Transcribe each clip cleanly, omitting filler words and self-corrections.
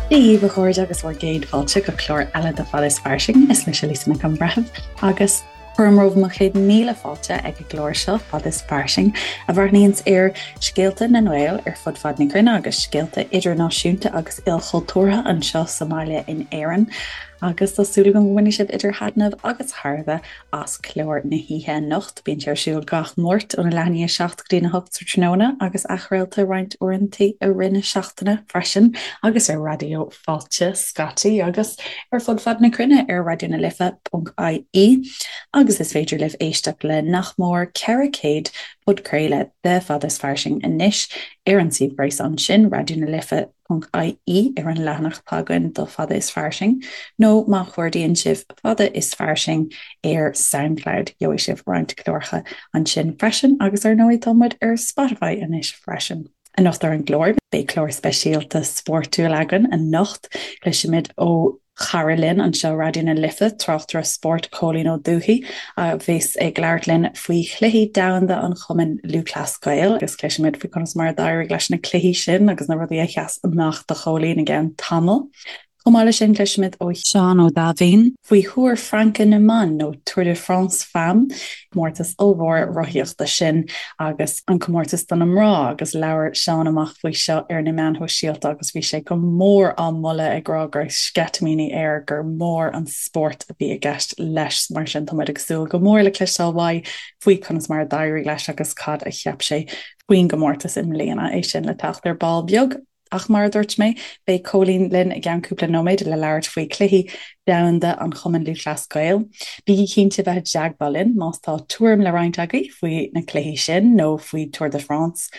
Dia dhaoibh a chairde agus bhur gcéad fáilte go clár eile de Fada is Fairsing. Is mise Lisa Nic an Bhreithimh agus cuirim romhaibh mo chéad míle fáilte ag an gclár seo Fada is Fairsing a bhreathnaíonns ar scéalta na nGael ar fud fad na cruinne agus scéalta idirnáisiúnta agus ilchultúrtha anseo sa mbaile in Éirinn. Agus tá súil agam go mbainfidh sibh idir thaitneamh agus thairbhe as clár na hoíche anocht. Bíonn sé ar siúl gach Máirt óna leath i ndiaidh a 7 go dtína 8 sa tráthnóna agus athchraolta roinnt uaireanta i rith na seachtaine freisin agus ar Raidió Fáilte scaití agus ar fud fad na cruinne ar raidionalife.ie agus is féidir libh éisteacht le nach mór 400 podchraoladh de Fada is Fairsing anois ar an suíomh gréasáin sin, raidionalife. ie ar an leathanach atá againn do Fada is Fairsing, nó má chuardaíonn sibh Fada is Fairsing ar Soundcloud, gheobhaidh sibh roinnt cláracha ansin freisin, agus ar ndóigh tá muid ar Spotify anois freisin. Anocht ar an gclár, beidh clár speisialta spórtúil againn anocht, cloisfimid ó chara linn anseo Raidió na Life, tráchtaire spóirt Cóilín Ó Dubhthaigh, a bheas ag labhairt linn faoi Chluichí Domhanda an Chumainn Lúthchleas Gael agus cloisfimid faoi conas mar a d'éirigh leis na cluichí sin agus na rudaí a sheas amach do Chóilín i gceann tamaill. Chomh maith leis sin cloisfimid ó Sheán Ó Daimhín faoi Thúr Fraince na mBan nó Tour de France Femmes, comórtas ollmhór rothaíochta sin agus an comórtas do na mná agus labhair Seán amach faoi seo ar na meáin shóisialta agus bhí sé go mór á mholadh ag rá go raibh sceitimíní air gur mór an spórt a bhí i gceist leis. Mar sin tá muid ag súil go mór le cloisteáil uaidh faoi conas mar a d'éirigh leis agus cad a cheap sé faoin gcomórtas i mbliana, é sin le teacht ar ball beag. Ach mar a dúirt mé, beidh Cóilín linn i gceann cúpla nóiméad le labhairt faoi Chluichí Domhanda an Chumainn Lúthchleas Gael. Bígí cinnte bheith i dteagmháil linn más tá tuairim le roinnt agaibh faoi na cluichí sin nó faoi Tour de France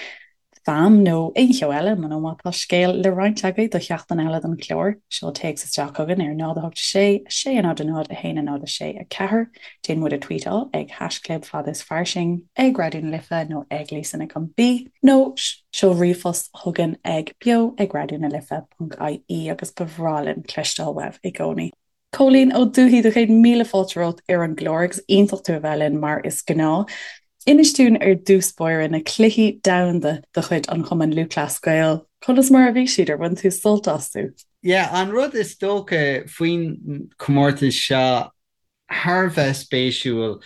Femmes nó aon cheo eile, nó má tá scéal le roinnt agaibh do sheachtain eile den chlár, seol téacs isteach chugainn ar 0 8 6 6 0 0 1 0 6 4. Déan muid a tweetáil ag haischlib fada is fairsing, ag Raidió na Life nó ag Lisa Nic an B nó seol ríomhphost chugainn ag beo ag raidió na life ponc ie agus ba bhreá linn cloisteáil uaibh i gcónaí. Cóilín Ó Dubhthaigh, do chéad míle fáilte romhat ar an gclár agus iontach tú a bheith linn mar is gnáth. Inis dúinn ar dtús báire na cluichí domhanda de chuid an Chumainn Lúthchleas Gael, conas mar a bhí siad, ar bhain tú sult astu? Yeah, an rud is dócha faoin chomórtas seo thar a bheith spéisiúil.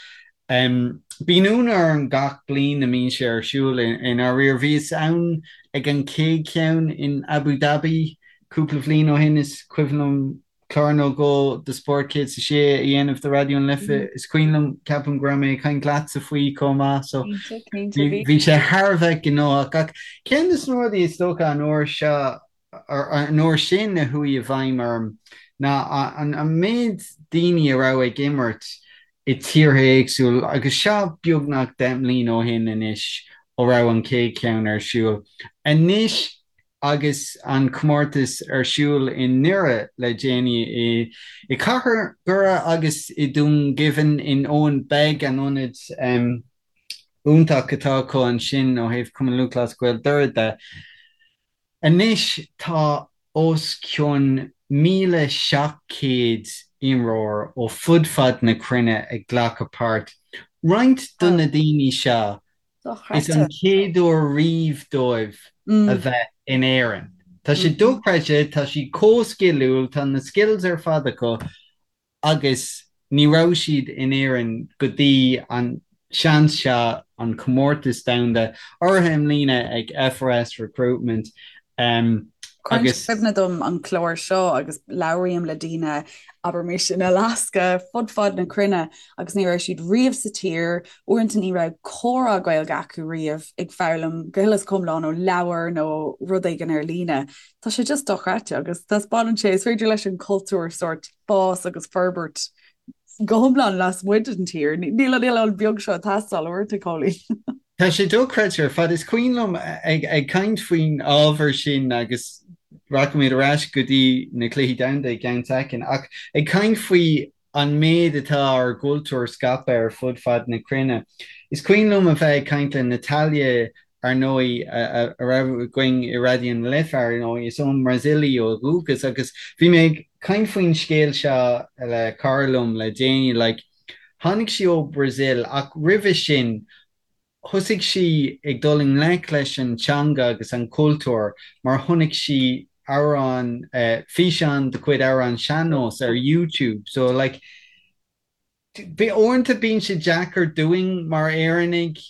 Bíonn ionadh orm gach bliain a mbíonn sé ar siúl i ndáiríre. Bhíos ann ag an chéad cheann in Abu Dhabi cúpla bhliain ó shin, is cuimhin liom clár nó dhó de Spórt 106 a dhéanamh do Raidió na Life. Is cuimhin liom, ceapaim go raibh mé ag caint leatsa faoi chomh maith, so bhí sé thar a bheith gnóthach. Ach ceann de na rudaí is dócha an uair seo, an uair sin a chuaigh i bhfeidhm orm ná an méid daoine a raibh ag imirt i tíortha éagsúla agus seo beagnach 10 mbliana ó shin anois ó raibh an chéad cheann ar siúl. Anois agus an comórtas ar siúl i nDoire le déanaí, i gcathair Dhoire agus i Dún Geimhin in Owenbeg, an ionad iontach atá acu ansin ó thaobh Cumann Lúthchleas Gael Doire de. Anois tá os cionn 1,700 imreoir ó fud fad na cruinne ag glacadh páirt. Roinnt de na daoine seo, is an chéad uair riamh dóibh a bheith in Éirinn. Tá sé dochreidte, tá siad chomh sciliúil, tá na skills ar fad acu agus ní raibh siad in Éirinn go dtí an seans seo, an comórtas domhanda, urraithe i mbliana ag FRS Recruitment Cuireann sé cuimhne dom an clár seo agus labhraím le daoine, abraimis in Alaska, fud fad na cruinne agus ní raibh siad riamh sa tír, uaireanta ní raibh comhrá Gaeilge acu riamh, ag foghlaim go huile is go hiomlán ó leabhar nó rud éigin ar líne. Tá sé just dochreidte agus taispeánann sé, is féidir leis an cultúr sórt fás agus forbairt go hiomlán lasmuigh den tír. Níl an oileán beag seo ag teastáil uaireanta, Cóilín. Tá sé dochreidte ar fad. Is cuimhin liom ag caint faoin ábhar sin agus rachaimid ar ais go dtí na Cluichí Domhanda i gceann soicind, ach ag caint faoi an méid atá ár gcultúr scaipthe ar fud fad na cruinne. Is cuimhin liom a bheith ag caint le Natalia ar ndóigh, a raibh againn i Raidió na Life, ar ndóigh, is ón mBrasaíl í ó dhúchas agus bhí mé ag caint faoin scéal seo le cara liom le déanaí, like, tháinig sí ó Brazil ach roimhe sin thosaigh sí ag dul i ngleic leis an teanga agus an cultúr mar chonaic sí. amhrán, físeán de chuid amhrán sean-nós ar YouTube. So like, uaireanta bíonn sé deacair dúinn mar Éireannaigh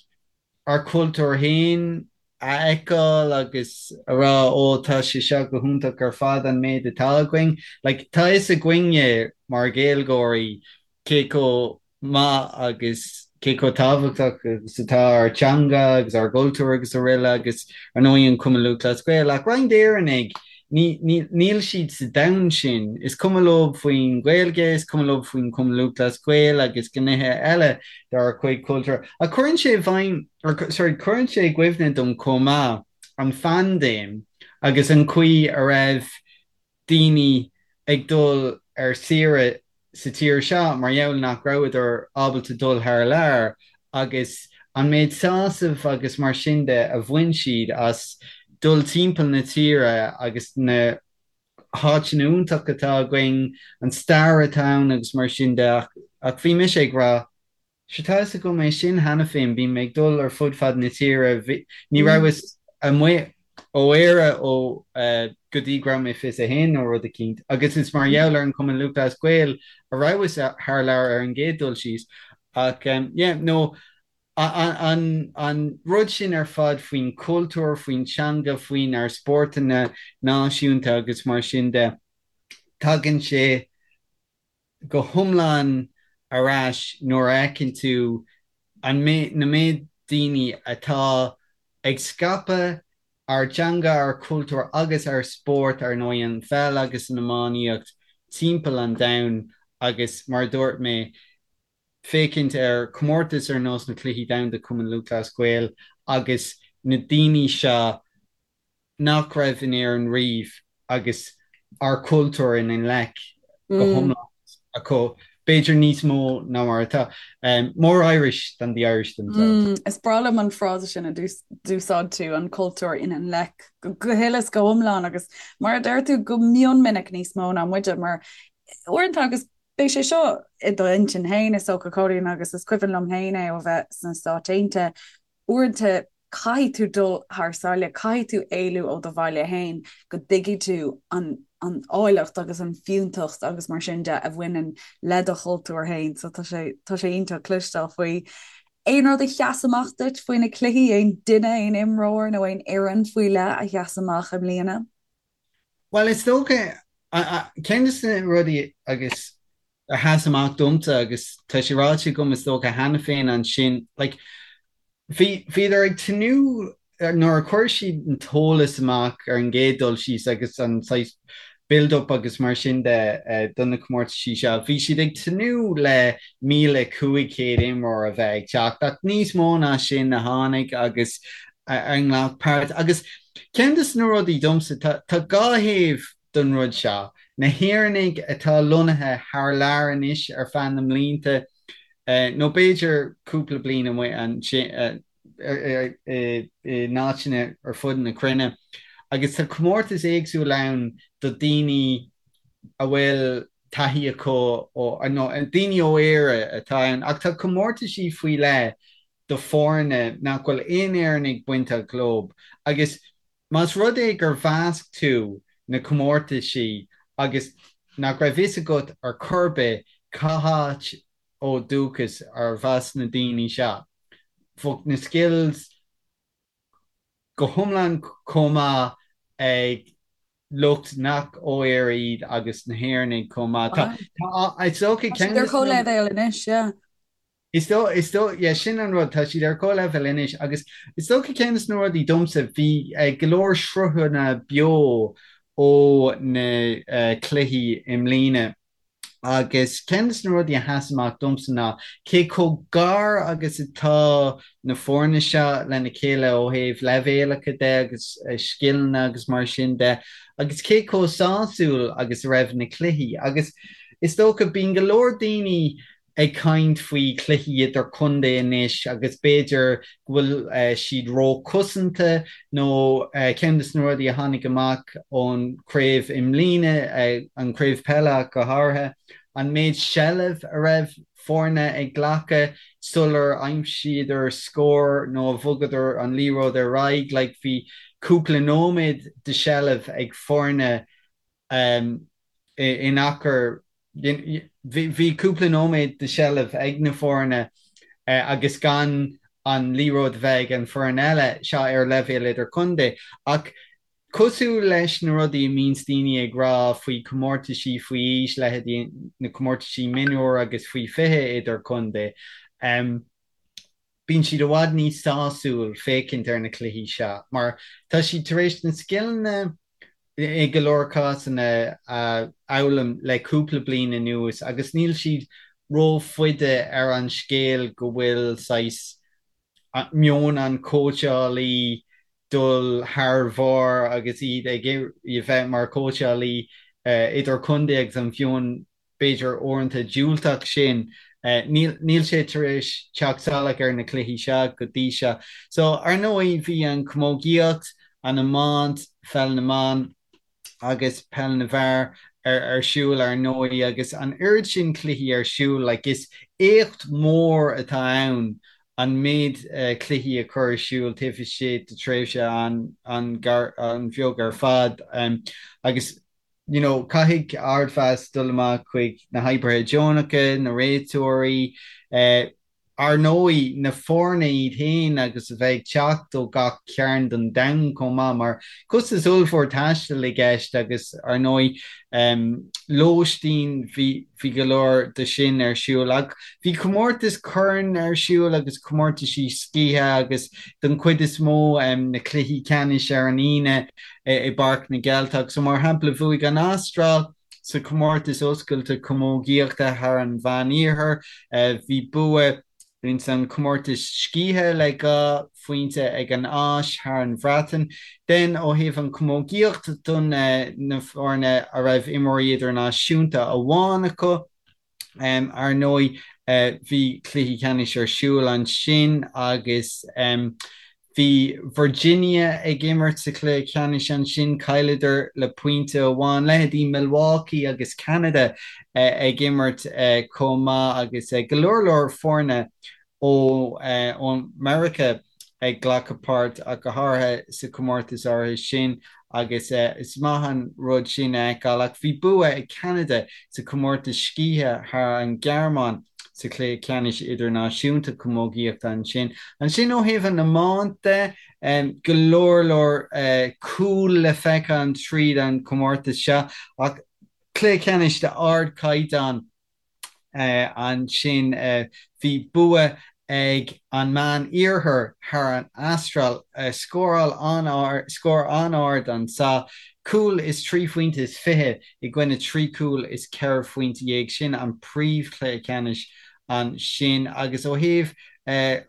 ár cultúr féin a fheiceáil agus a rá ó tá sé seo go hiontach ar fad an méid atá againn. Like, tá fhios againne mar Ghaeilgeoirí cé chomh maith agus cé chomh tábhachtach agus atá ár dteanga agus ár gcultúr agus araile agus ar ndóigh an Cumann Lúthchleas Gael ach roinnt Éireannaigh níl siad sa domhan sin. Is cuma leo faoin Ghaeilge, is cuma leo faoin Chumann Lúthchleas Gael agus gnéithe eile dár gcuid cultúr. Ach cuireann sé i bhfeidhm, or sorry, cuireann sé i gcuimhne dom chomh maith an phaindéim agus an chaoi a raibh daoine ag dul ar saoire sa tír seo mar gheall nach rabhadar ábalta dul thar lear agus an méid sásaimh agus mar sin de a bhain siad as dul timpeall na tíre agus na háiteanna iontacha atá againn, an stair atá ann agus mar sin de ach bhí mise ag rá Sure tá fhios agam é sin cheana féin, bím ag dul ar fud fad na tíre, ní rabhas amuigh ó Éire ó go dtí go raibh mé 21 nó rud eicínt agus is mar gheall ar an Chumann Lúthchleas Gael a rabhas thar lear ar an gcéad dul síos ach yeah no an an rud sin ar fad faoin chultúr, faoin teanga, faoinár spórtanna náisiúnta agus mar sin de, tagann sé go hiomlán ar ais nuair a fheiceann tú an na méid daoine atá ag scaipeadh ár dteanga, ár cultúr agus ár spórt, ar ndóigh an pheil agus an iománaíocht, timpeall an domhain agus mar a dúirt mé, féachaint ar chomórtas ar nós na Cluichí Domhanda Cumann Lúthchleas Gael agus na daoine seo nach raibh in Éirinn riamh agus ár cultúr ina nglaic go hiomlán acu, b'fhéidir níos mó ná mar atá. More Irish than the Irish themselves. Is breá liom an frása sin a d'úsáid tú, an cultúr ina nglaic go huile is go hiomlán agus mar a deir tú go mion minic níos mó ná muide mar uaireanta agus beidh sé seo i d'intinn féin is dócha Cóilín agus is cuimhin liom féin é ó bheith sna Stáit Aontaithe Uaireanta caithfidh tú dul thar sáile, caithfidh tú éalú ó do bhaile féin go dtuigfidh tú an an áilleacht agus an fiúntacht agus mar sin de a bhaineann le do chultúr féin. So tá sé tá sé iontach cloisteáil faoi. Aon rud a sheas amach duit faoi na cluichí, aon duine, aon imreoir nó aon fhoireann faoi leith a sheas amach i mbliana? Bhuel, is dócha, ceann de na rudaí agus a sheas amach domsa agus tá sé ráite agam is dócha cheana féin ansin, like, bhí, bhíodar ag tnúth nuair a chuir siad an t-eolas amach ar an gcéad dul síos agus an saghas build up agus mar sin de do na comórtaisí seo, bhí siad ag tnúth le 1,500 imreoir a bheith ag teacht ach níos mó ná sin a tháinig agus a ghlac páirt. Agus ceann de na rudaí domsa, tá dhá thaobh don rud seo, na hÉireannaigh atá lonnaithe thar lear anois ar feadh na mblianta, nó b'fhéidir cúpla bliain amuigh ansin in áiteanna ar fud na cruinne, agus tá comórtas éagsúil ann do daoine a bhfuil taithí acu ó, nó daoine ó Éire atá ann, ach tá comórtaisí faoi leith do foirne nach bhfuil aon Éireannaigh bainteach leo agus más rud é gur mheasc tú na comórtaisí agus nach raibh fhios agat ar chor ar bith cá háit ó dúchas arbh as na daoine seo, bheadh na skills go hiomlán chomh maith ag lucht nach ó Éire iad agus na hÉireannaigh chomh maith. Tá, tá, is dócha Tá siad ar comhleibhéal anois, yeah. Is dóigh, is dóigh, yeah, sin an rud, tá siad ar comhleibhéal anois agus is dócha ceann de na rudaí domsa, bhí go leor sruthanna beo ó na cluichí i mbliana agus ceann de na rudaí a sheas amach domsa ná cé chomh gar agus atá na foirne seo lena chéile ó thaobh leibhéalacha de agus scileanna agus mar sin de agus cé chomh sásúil agus a raibh na cluichí agus is dócha bíonn go leor daoine ag caint faoi chluichí idir-chontae anois agus b'fhéidir go bhfuil siad ró-chosanta nó ceann de na rudaí a tháinig amach ón chraobh i mbliana, an chraobh peile ach go háirithe, an méid seilbh a raibh foirne ag glacadh sular aimsíodar scór nó a bhogadar an liathróid ar aghaidh. Like bhí. cúpla nóiméad de sheilbh ag foirne in achar, bhí cúpla nóiméad de sheilbh ag na foirne agus gan an liathróid a bheith ag an foireann eile, seo ar leibhéal idirchontae. Ach cosúil leis na rudaí a mbíonns daoine ag rá faoi chomórtaisí faoi aois, leithéidí na comórtaisí mionúir agus faoi 20 idirchontae, bíonn siad i bhfad níos sásúil féachaint ar na cluichí seo mar tá siad tar éis na scileanna i go leor cásanna a fhoghlaim le cúpla bliain anuas agus níl siad rófhada ar an scéal go bhfuil saghas meon an chóitseálaí dul thar bharr agus iad ag iarraidh bheith mar chóitseálaí idirchontae agus an mheon b'fhéidir uaireanta diúltach sin. Níl sé tar éis teacht salach ar na cluichí seo go dtí seo. So, ar ndóigh, bhí an chamógaíocht, an iomáint, pheil na mban agus peil na bhfear ar siúl ar ndóigh agus an oiread sin cluichí ar siúl, like is éacht mór atá ann an méid cluichí a chur ar siúl taobh istigh de tréimhse an-bheag ar fad agus you know, caithfidh ardmheas dul amach chuig na hoibrithe deonacha, na réiteoirí, eh, ar ndóigh, na foirne iad féin agus a bheith ag teacht ó gach cearn den domhan chomh maith, mar costas ollmhór taistil i gceist agus, ar ndóigh, em, lóistín, bhí, bhí go leor de sin ar siúl. Ach bhí comórtas corn ar siúl agus comórtaisí scíthe agus don chuid is mó, em, na cluichí ceannais ar an Aoine, i bPáirc na gCeilteach. So mar shampla bhuaigh an Astráil sa chomórtas oscailte camógaíochta thar an Mheán-Iarthar. Bhí bua ins an chomórtas scíthe le 2 phointe ag an Áis thar an Bhreatain. Then ó thaobh an chamógaíocht don na foirne a raibh imreoirí idirnáisiúnta amháin acu, Ar ndóigh, bhí cluichí ceannais ar siúl ansin agus bhí Virginia ag imirt sa chluiche ceannais ansin, chailleadar le pointe amháin. Leithéidí Milwaukee agus Ceanada ag imirt chomh maith agus go leor leor foirne ó Meiriceá ag glacadh páirt ach go háirithe sa chomórtas áirithe sin agus is maith an rud sin a fheiceáil. Ach bhí bua ag Ceanada sa chomórtas scíthe thar an Ghearmáin sa chluiche ceannais idirnáisiúnta camógaíochta ansin. Ansin ó thaobh an iomáint de, go leor leor cúl le feiceáil tríd an chomórtas seo ach cluiche ceannais d'ardchaighdeán. Ansin bhí bua ag an Meán Iarthar thar an Astráil, scóráil an-ard, scór an-ard anso, cúl is 3 phointe is 20 i gcoinne 3 cúl is 14 phointe. Sin an príomhchluiche ceannais ansin. Agus ó thaobh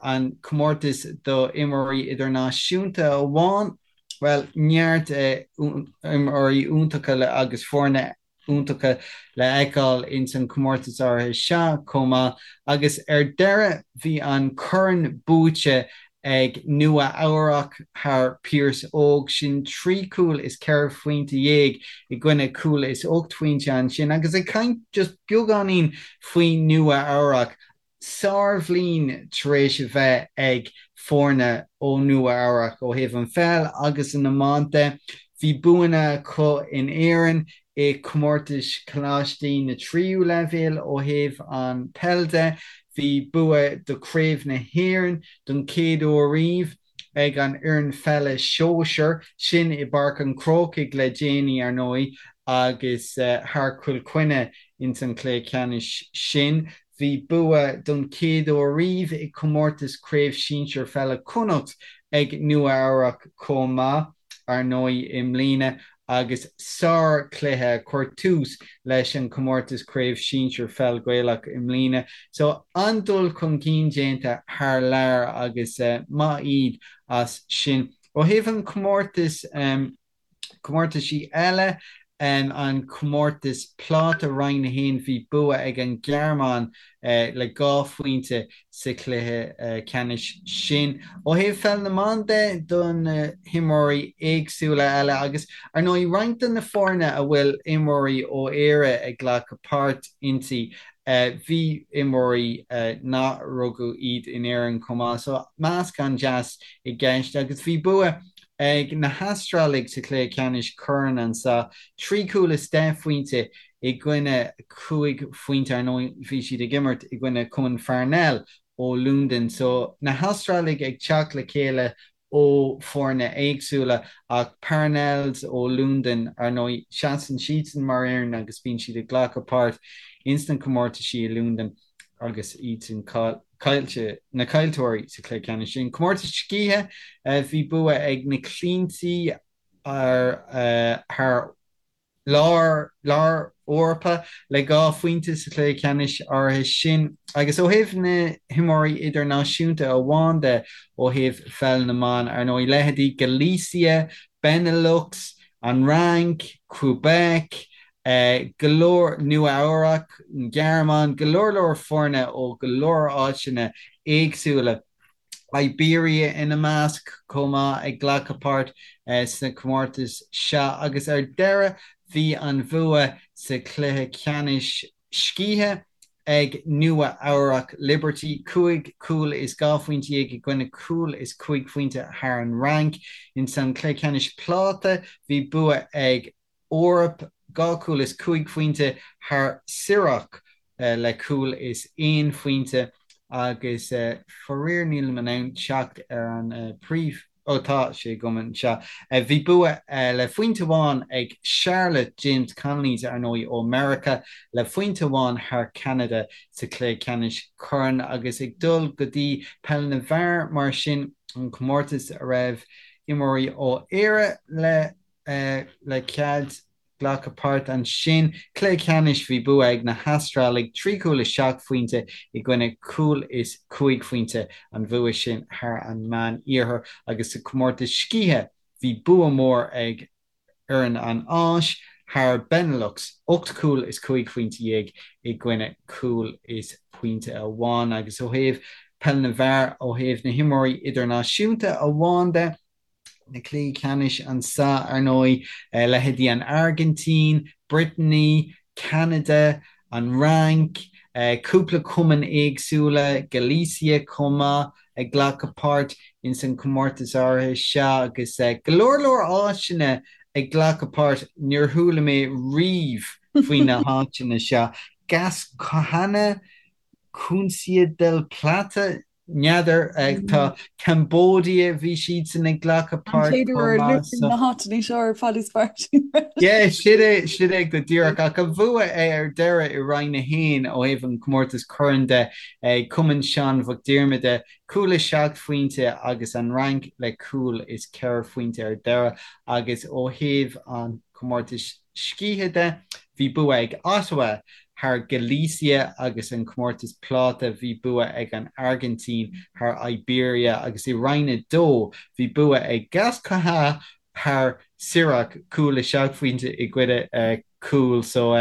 an comórtas do imreoirí idirnáisiúnta amháin, bhuel, neart imreoirí iontacha agus foirne iontacha le fheiceáil ins an chomórtas áirithe seo chomh maith agus ar deireadh bhí an corn buaite ag Nua Eabhrac thar Pearse Óg, sin 3 cúl is 14 phointe i gcoinne cúl is 8 phointe ansin agus ag caint just beagáinín faoi Nua Eabhrac Sárbhliain tar éis a bheith ag foirne ó Nua Eabhrac ó thaobh an pheil agus an iomáint de. Bhí buanna acu in Éirinn i comórtais coláistí na tríú leibhéal ó thaobh an peil de. Bhí bua do Chraobh na hÉireann don chéad uair riamh. ag an fhoireann pheile sóisear, sin i bPáirc an Chrócaigh le déanaí ar ndóigh agus thar Chill Chainnigh ins an chluiche ceannais sin. Bhí bua don chéad uair riamh i gcomórtas Craobh Sinsir Pheile Chonnacht ag Nua Eabhrac chomh maith ar ndóigh i mbliana agus sár-chluiche a chuir tús leis an chomórtas Craobh Sinsir Pheil Ghaelach i mbliana. So an-dul chun cinn déanta thar lear agus maith iad as sin. Ó thaobh an chomórtais, comórtaisí eile, an comórtas pláta Roinn 1 bhí bua ag an Ghearmáin le 2 phointe sa chluiche ceannais sin. Ó thaobh pheil na mban de, do na himreoirí éagsúla eile agus, ar ndóigh, roinnt de na foirne a bhfuil imreoirí ó Éire ag glacadh páirt inti, bhí imreoirí nach rugadh iad in Éirinn chomh maith. So meascán deas i gceist agus bhí bua. ag na hAstrálaigh sa chluiche ceannais corn anseo, 3 chúl is 10 phointe i gcoinne 5 phointe. Ar ndóigh, bhí siad ag imirt i gcoinne Cumann Pharnell ó Londain. So, na hAstrálaigh ag teacht le chéile ó foirne éagsúla ach Parnells ó Londain, ar ndóigh, seasann siadsan mar fhoireann agus bíonn siad ag glacadh páirt ins na comórtaisí i Londain agus iadsan caillte, na caillteoirí sa chluiche ceannais sin. Comórtas scíthe, bhí bua ag na Clíntí ar thar Lár Lár Eorpa le 2 phointe sa chluiche ceannais áirithe sin. Agus ó thaobh na himreoirí idirnáisiúnta amháin de, ó thaobh pheil na mban, ar ndóigh, leithéidí Galicia, Benelux, an Fhrainc, Quebec, go leor, Nua Eabhrac, an Ghearmáin, go leor leor foirne ó go leor áiteanna éagsúla. Iberia ina measc chomh maith ag glacadh páirt sna comórtais seo agus ar deireadh bhí an bhua sa chluiche ceannais scíthe ag Nua Eabhrac Liberty, 5 chúl is 12 phointe i gcoinne cúl is 5 phointe thar an Fhrainc. Ins an chluiche ceannais pláta bhí bua ag Eoraip, 2 chúl is 5 phointe thar Sirocco le cúl is 1 phointe agus faraor nílim in ann teacht ar an príomh, ó tá sé agam anseo. Bhí bua le phointe amháin ag Charlotte, James Connolly's ar ndóigh ó Meiriceá, le phointe amháin thar Ceanada sa chluiche ceannais corn agus ag dul go dtí peil na bhfear mar sin, an comórtas a raibh imreoirí ó Éire le le cead glacadh páirt ansin. Cluiche ceannais, bhí bua ag na hAstrálaigh, 3 chúl is 7 phointe i gcoinne cúl is 5 phointe, an bhua sin thar an Meán Iarthar agus sa chomórtas scíthe bhí bua mór ag fhoireann an Áis thar Benelux, 8 chúl is 15 phointe i gcoinne cúl is pointe amháin. Agus ó thaobh peil na bhfear, ó thaobh na himreoirí idirnáisiúnta amháin de, na cluichí ceannais anso, ar ndóigh, leithéidí an Airgintín, Brittany, Ceanada, an Fhrainc, cúpla cumann éagsúla, Galicia chomh maith, ag glacadh páirt ins an chomórtas áirithe seo agus go leor leor áiteanna ag glacadh páirt, níor chuala mé riamh faoi na háiteanna seo. Gascoyne, Cuncia del Plata, N'fheadar. Tá Cambodia, bhí siadsan ag glacadh An páirt chéad chomh uair a maith luaigh so. na háiteanna seo ar Fad is Fairsing. Yeah, sin é, sin é go díreach. Ach an bhua ar deireadh i Roinn 1 ó thaobh an comórtas corn de ag Cumann Seán Mhic Diarmada, cúl is 7 phointe agus an Fhrainc le cúl is 4 phointe ar deireadh agus ó thaobh an chomórtais scíthe de, bhí bua ag Ottawa thar Galicia agus an comórtas pláta bhí bua ag an Airgintín thar Iberia agus i Roinn 2 bhí bua ag Gascoyne thar Sirocco, cúl is 7 phointe i gcoinne cúl. So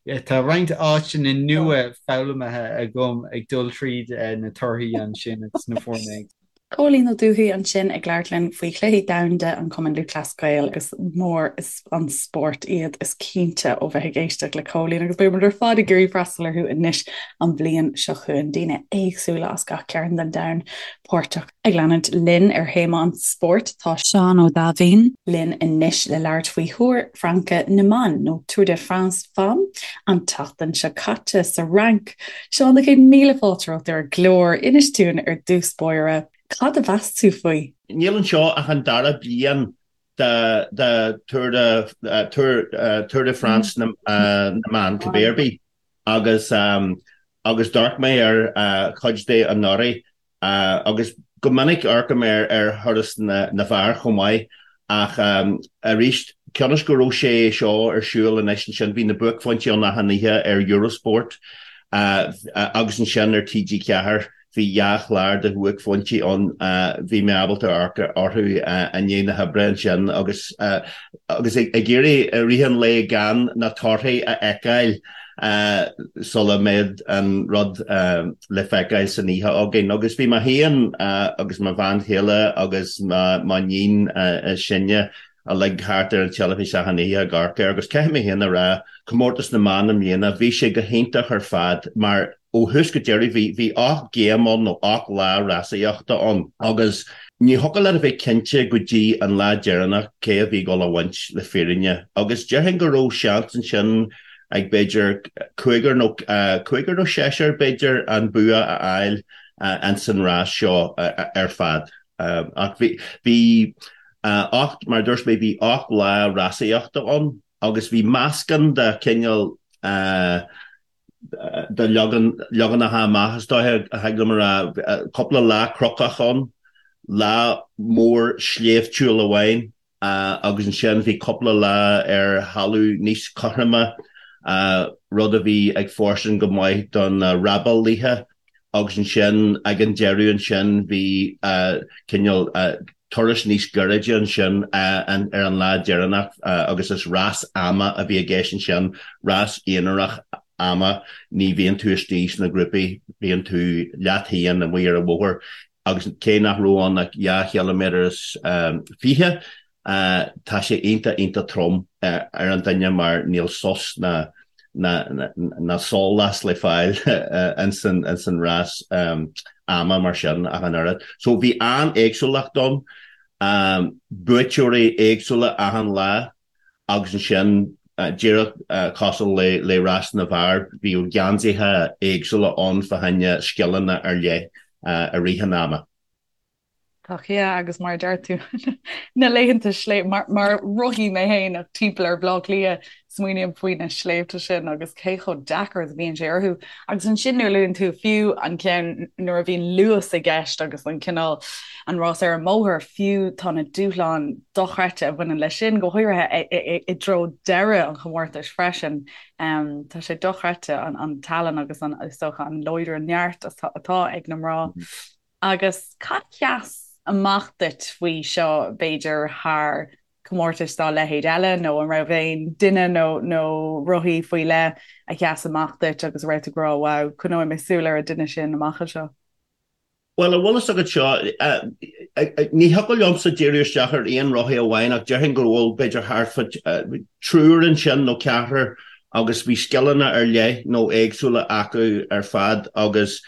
tá roinnt áiteanna nua foghlamtha agam ag dul tríd na torthaí ansin agus na foirne. Cóilín Ó Dubhthaigh ansin ag labhairt linn faoi Chluichí Domhanda an Chumainn Lúthchleas Gael agus mór an spórt iad is cinnte ó bheith ag éisteacht le Cóilín agus beidh muid ar fad ag iarraidh freastal orthu anois an bhliain seo chugainn. Daoine éagsúla as gach cearn den domhan páirteach. Ag leanúint linn ar théama an spóirt tá Seán Ó Daimhín linn anois le labhairt faoi Thúr Fraince na mBan nó Tour de France Femmes an tseachtain seo caite sa Fhrainc. Seán, 100,000 fáilte romhat ar an gclár. Inis dúinn ar dtús báire, cad a mheas tú faoi? Níl anseo ach an dara bliain de de Tour de Tour Tour de France na mban cibé ar bith agus agus d'amharc mé ar chuid de anuraidh Agus go minic amharcaim ar ar thuras na bhfear chomh maith ach arís, cionn is go raibh sé seo ar siúl anois ansin, bhí na buaicphointí ann achan oíche ar Eurosport agus ansin ar TG4, bhí dhá chlár de bhuaicphointí ann, bhí mé ábalta amharc orthu i ndiaidh na hoibre ansin agus agus ag iarraidh i rith an lae gan na torthaí a fheiceáil. sula mbeadh an rud le feiceáil san oíche againn. Agus bhí mé féin agus mo bhean chéile agus m'iníon is sinne uilig thart ar an teilifís achan oíche ag amharc air agus caithfidh mé féin a rá, comórtas na mban i mbliana, bhí sé go hiontach ar fad mar ó thús go deireadh bhí 8 game ann nó 8 lá rásaíochta ann agus. Ní thiocfadh leat a bheith cinnte go dtí an lá deireanach cé a bhí ag dul a bhaint le fírinne agus déarfainn go raibh seans ansin ag b'fhéidir cúigear nó cúigear nó seisear b'fhéidir an bua a fháil ins an rás seo ar fad. Ach bhí bhí 8 mar a dúirt mé bhí 8 lá rásaíochta ann agus bhí meascán de chineál de leaganacha amach, is dóiche, a thig liom a rá. Cúpla lá cnocach ann, lá mór sléibhtiúil amháin agus ansin bhí cúpla lá ar thalamh níos cothroime, rud a bhí ag fóirstean go maith do na rábálaithe agus ansin ag an deireadh ansin bhí cineál turas níos gairide ansin ar an lá deireanach agus is rás ama a bhí i gceist ansin, rás aonarach ama, ní bhíonn tú istigh sna grúpaí, bíonn tú leat féin amuigh ar an bhóthar agus cé nach raibh ann ach dhá chiliméadar is 20, tá sé iontach, iontach trom ar an duine mar níl sos ná ná sólás le fáil ins an rás ama mar sin ach an oiread. So bhí an-éagsúlacht ann, buaiteoirí éagsúla achan lá agus ansin díreach cosúil le rás na bhfear, bhíodh geansaithe éagsúla ann fá choinne scileanna ar leith i rith an ama. Tá yeah agus mar a deir tú na laethanta sléibhe mar mar rothaí mé féin ach timpeall ar Bhaile Átha Cliath smaoiním faoi na sléibhte sin agus cé chomh deacair is a bhíonn sé orthu. Agus ansin nuair a luann tú fiú an ceann nuair a bhíonn luas i gceist agus an cineál an rás ar an mbóthar fiú tá na dúshláin dochreidte a bhaineann leis sin go háirithe i dtreo deireadh an chomórtais freisin. Tá sé dochreidte an an tallann agus an is dócha an láidre an neart atá ag na mná. Agus cad a sheas amach duit faoi seo, b'fhéidir, thar comórtais dá leithéid eile, nó an raibh aon duine nó nó rothaí faoi leith a sheas amach duit agus a raibh tú ag rá 'wow, coinneoidh mé súil ar an duine sin amach anseo'? Bhuel, an bhfuil fhios agat seo, ní thiocfadh liomsa díriú isteach ar aon rothaí amháin ach déarfainn go bhfuil b'fhéidir thart fá triúr ansin nó ceathrar agus bhí scileanna ar leith nó éagsúla acu ar fad agus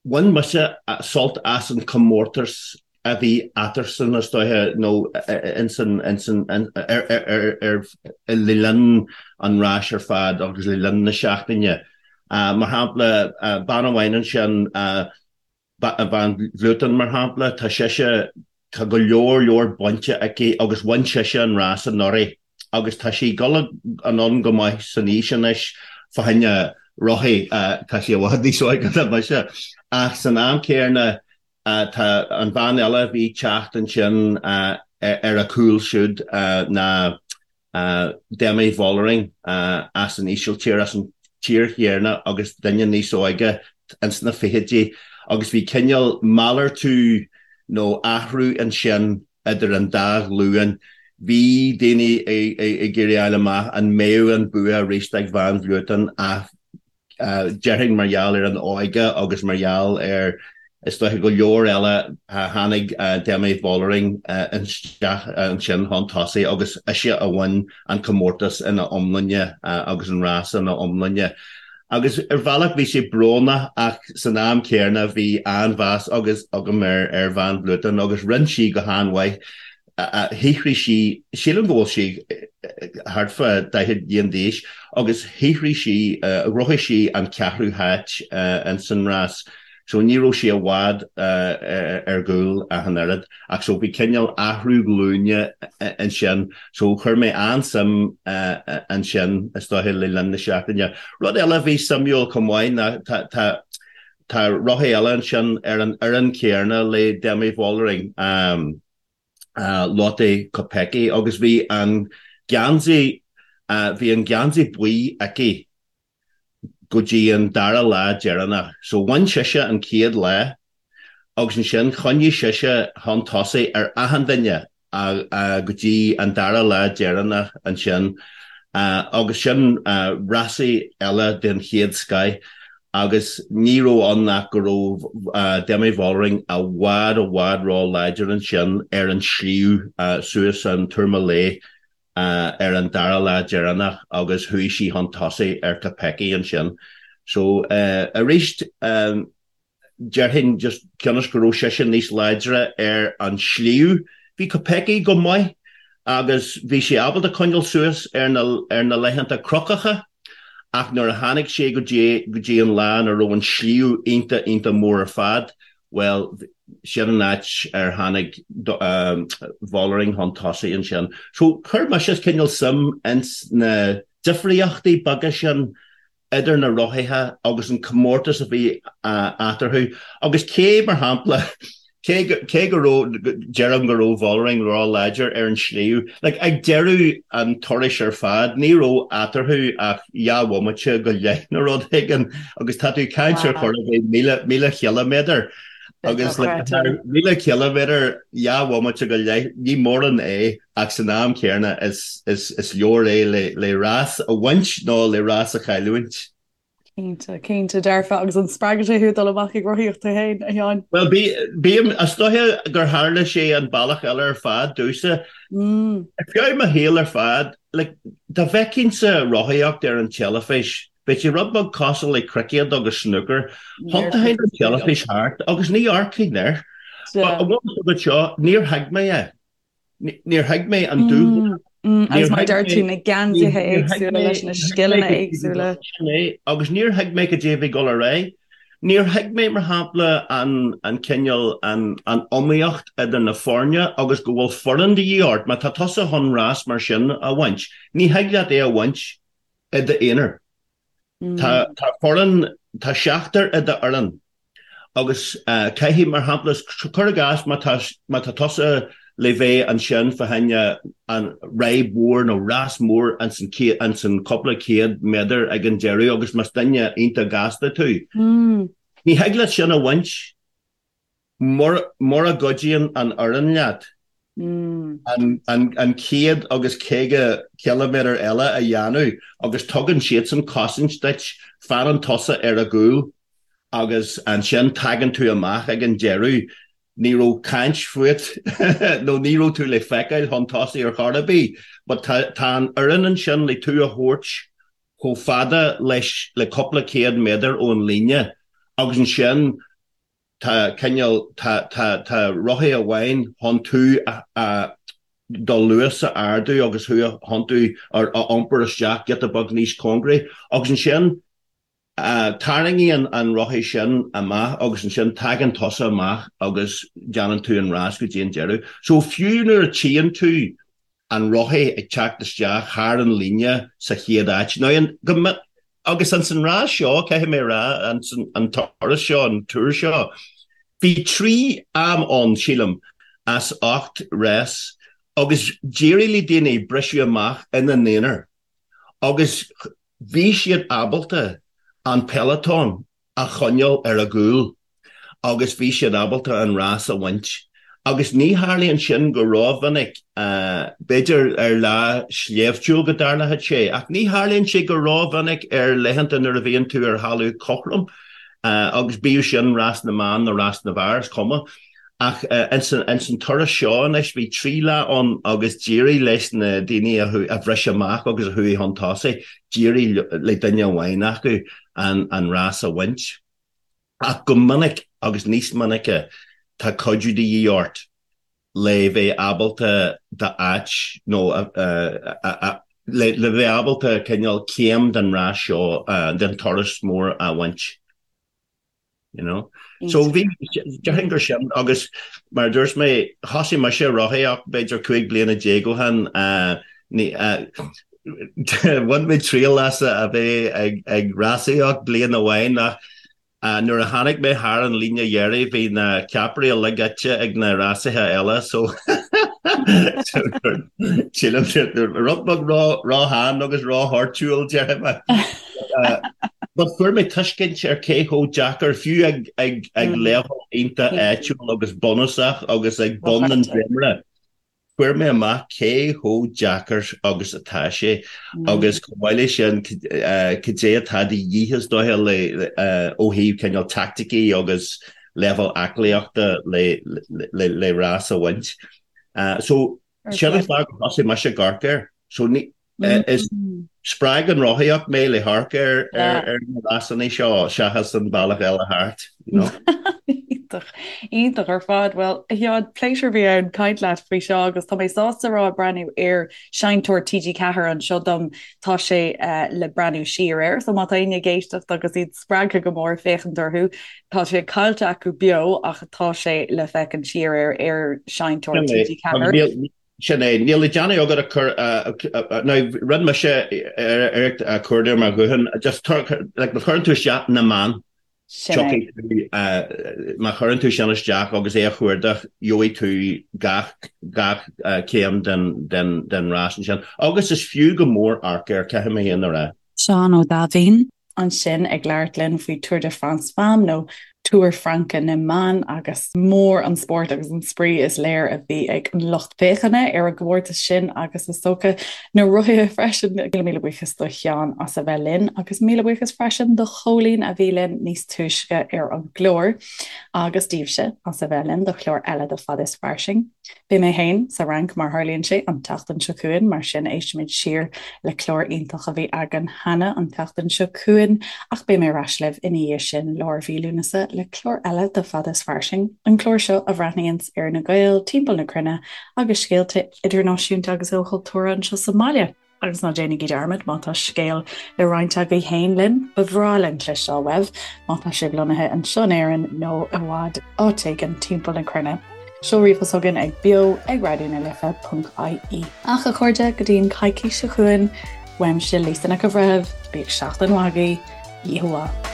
Bhain mise sult as an chomórtas a bhí eatarthusan, is dóiche, nó ins an, ins an, ar, ar, ar, le linn an ráis ar fad agus le linn na seachtaine. Mar shampla, bean amháin ansin, Van Vleuten, mar shampla, tá sise, Tá go leor leor bainte aici agus bhain sise an rás anuraidh agus tá sí ag dul anonn go maith san aois anois fá choinne rothaí, tá sí i bhfad níos óige ná mise. Ach san am céanna tá an bhean eile a bhí ag teacht ansin ar a cúl siúd ná Demi Vollering as an Ísiltír, as an tír chéanna agus duine níos óige ins na fichidí agus bhí cineál malartú nó athrú ansin idir an dá ghlúin. Bhí daoine ag iarraidh a fháil amach an mbeadh an bua arís ag Van Vleuten ach déarfainn mar gheall ar an óige agus mar gheall ar, is dóiche, go leor eile, tháinig Demi Vollering isteach ansin chun tosaigh agus ise a bhain an comórtas ina iomláine agus an rás ina iomláine. Agus ar bhealach bhí sé brónach ach san am céanna bhí an-mheas agus agam ar Van Vleuten agus rinne sí go han-mhaith. Shaothraigh sí, sílim go bhfuil sí thart fá 40 bliain d'aois, agus shaothraigh sí, ghnóthaigh sí an ceathrú háit ins an rás. So ní raibh sí i bhfad ar gcúl ach an oiread. Ach so bhí cineál athrú glúine ansin. So chuir mé an-suim ansin, is dóiche, le linn na seachtaine. Rud eile a bhí suimiúil chomh maith ná tá, tá, tá rothaí eile ansin ar an fhoireann chéanna le Demi Vollering. Lotte Kopecky agus bhí an geansaí, bhí an geansaí buí aici go dtí an dara lá deireanach. So bhain sise an chéad lá agus ansin choinnigh sise chun tosaigh ar achan duine go dtí an dara lá deireanach ansin agus sin rásaí eile den chéad scoith. Agus ní raibh ann ach go raibh Demi Vollering i bhfad i bhfad ró-láidir ansin ar an sliabh suas an Tourmalet ar an dara lá deireanach agus chuaigh sí chun tosaigh ar Kopecky ansin. So arís. Déarfainn just cionn is go raibh sise níos láidre ar an sliabh. Bhí Kopecky go maith agus bhí sí ábalta coinneáil suas ar na ar na laethanta cnocacha ach nuair a tháinig sé go dtí go dtí an lá ina raibh an sliabh iontach iontach mór ar fad, bhuel, sin an áit ar tháinig Vollering chun tosaigh ansin. So chuir mise cineál suim ins na difríochtaí beaga sin idir na rothaithe agus an comórtas a bhí eatarthu agus cé, mar shampla, cé cé go raibh, deirim go raibh Vollering ró-láidir ar an sliabh, like ag deireadh an turais ar fad ní raibh eatarthu ach dhá bhomaite go leith nó rud éigin agus tá tú ag caint ar chor ar bith 1,000 ciliméadar agus like 1,000 ciliméadar dhá bhomaite go leith ní mórán é. ach san am céanna is leor é le rás a bhaint nó le rás a chailliúint. Cinnte, cinnte dearfa. Agus an spreagann sé thú dul amach ag rothaíocht tú féin, a Sheáin? Bhuel, bím, is dóiche gur tharla sé an bealach eile ar fad domhsa. Ar feadh mo shaoil ar fad, like, dá bhfeicinnse rothaíocht ar an teilifís, bheadh sé rud beag cosúil le cruicéad agus snúcar. Thiontóinn an teilifís thart agus ní amharcfainn air. But an bhfuil a fhios agat seo, níor thuig mé é. Níor thuig mé an dúshlán. Agus mar a deir tú, na geansaithe éagsúla leis na scileanna éagsúla. Sin é, agus níor thuig mé cad é a bhí ag dul ar aghaidh. Níor thuig mé, mar shampla, an cineál, an iomaíocht idir na foirne agus go bhfuil foireann de dhíth ort. Má tá tusa chun rás mar sin a bhaint, ní thig leat é a bhaint i d'aonar. Tá foireann, tá seachtar i d'fhoireann agus caithfidh, mar shampla, cuir i gcás má tá, má tá tusa le bheith ansin fá choinne an ride mhór nó rás mór ins an céad, ins an cúpla céad méadar ag an deireadh agus más duine iontach gasta tú, ní thig leat sin a bhaint. Mura gcuidíonn an fhoireann leat an 150 ciliméadar eile a dhéanamh agus tugann siadsan cosaint duit, fanann tusa ar a gcúl agus ansin tagann tú amach ag an deireadh, ní raibh caint fút nó ní raibh tú le feiceáil chun tosaigh ar chor ar bith but tá an fhoireann ansin le tú a thabhairt chomh fada leis le cúpla céad méadar ón líne agus ansin Tá cineál, tá, tá, tá rothaí amháin chun tú a, a, do luas a ardú agus thú a thiontú ar, a iompar isteach giota beag níos cóngaraí agus ansin tarraingíonn an rothaí sin amach agus ansin tagann tusa amach agus déanann tú an rás go dtí an deireadh. So fiú nuair a tchíonn tú an rothaí ag teacht isteach thar an líne sa chéad áit. Now an, go, agus ins an rás seo, caithfidh mé a rá, ins an turas seo, an tour seo, bhí 3 am ann, sílim, as 8 rás agus d'éirigh le daoine briseadh amach ina n-aonar agus bhí siad ábalta an peloton a choinneáil ar a gcúl agus bhí siad ábalta an rás a bhaint. Agus ní tharlaíonn sin go rómhinic, b'fhéidir ar lá sléibhtiúil go dtarlódh sé, ach ní tharlaíonn sé go rómhinic ar laethanta nuair a bhíonn tú ar thalamh cothrom, agus bíodh sin rás na mban nó rás na bhfear, is cuma. Ach ins an turas seo anois, bhí 3 lá ann agus d'éirigh leis na daoine a bhris amach agus a chuaigh chun tosaigh, d'éirigh le duine amháin acu an rás a bhaint. Ach go minic, agus níos minice, tá cuidiú de dhíth ort le bheith ábalta d'áit nó le bheith ábalta cineál céim den rás seo, den turas mór a bhaint. You know? So bhí, déarfainn gur sin, agus mar a dúirt mé, thosaigh mise ag rothaíocht b'fhéidir 15 bliana ó shin, bhain mé triail as a bheith ag rásaíocht bliain amháin ach nuair a tháinig mé thar an líne dheiridh bhí na ceapairí uilig ite ag na rásaithe eile so sílim rud beag ró-shean agus ró-thoirtiúil déarfaidh mé. But fuair mé tuiscint ar cé chomh deacair, fiú ag ag ag leibhéal iontach áitiúil agus bunúsach agus ag bun an dréimire, fuair mé amach cé chomh deacair agus atá sé agus chomh maith leis sin cad é atá de dhíth is dóiche le ó thaobh cineál teaicticí agus leibhéal aclaíochta le le le rás a bhaint. So sin an fáth gur thosaigh mise ag amharc air. So ní. Is spreag an rothaíocht mé le hamharc ar ar na rásanna seo seachas an bealach eile thart, you know. Iontach, iontach ar fad. Bhuel, a Sheáin, pléisiúr a bhí ann caint leat faoi seo agus tá mé sásta a rá ag breathnú ar seinnteoir TG4 anseo dom, tá sé le breathnú siar air, so má tá éinne ag éisteacht agus iad spreagtha go mór féachaint orthu, tá sé caillte acu beo ach tá sé le féachaint siar air ar seinnteoir TG4. Sin é. Níl le déanamh agat ach cur, now rinne mise iarracht cuardach ar mo ghuthán, just like má chuireann tú isteach na mban, tiocfaidh tú, má chuireann tú sin isteach agus é a chuardach, gheobhaidh tú gach, gach céim den, den, den rás ansin. Agus is fiú go mór amharc air, caithfidh mé féin a rá. Seán Ó Daimhín. ansin ag labhairt linn faoi Tour de France Femmes nó Túr Fraince na mBan agus mór an spórt agus an spraoi is léir a bhí ag an lucht féachana ar an gcomórtas sin agus is dócha na rothaithe freisin. Míle míle buíochas do Sheán as a bheith linn agus míle buíochas freisin do Chóilín a bhí linn níos túisce ar an gclár agus daoibhse as a bheith linn do chlár eile de Fad is Fairsing. Beidh mé féin sa Fhrainc, mar tharlaíonn sé, an tseachtain seo chugainn, mar sin éistfimid siar le clár iontach a bhí againn cheana an tseachtain seo chugainn, ach beidh mé ar ais libh ina dhiaidh sin, lár mhí Lúnasa, le clár eile de Fad is Fairsing, an clár seo a bhreathnaíonns ar na Gaeil timpeall na cruinne agus scéalta idirnáisiúnta agus ilchultúrtha anseo sa mbaile. Agus ná déanaigí dearmad, má tá scéal le roinnt agaibh féin linn, ba bhreá linn cloisteáil uaibh, má tá sibh lonnaithe anseo in Éirinn nó i bhfad áit éigin timpeall na cruinne. Seol ríomhphost chugainn ag beo ag raidió na life ponc ie. Ach a chairde, go dtí an coicís seo chugainn, uaimse Lisa Nic an Bhreithimh, bíodh seachtain mhaith agaibh, oíche mhaith.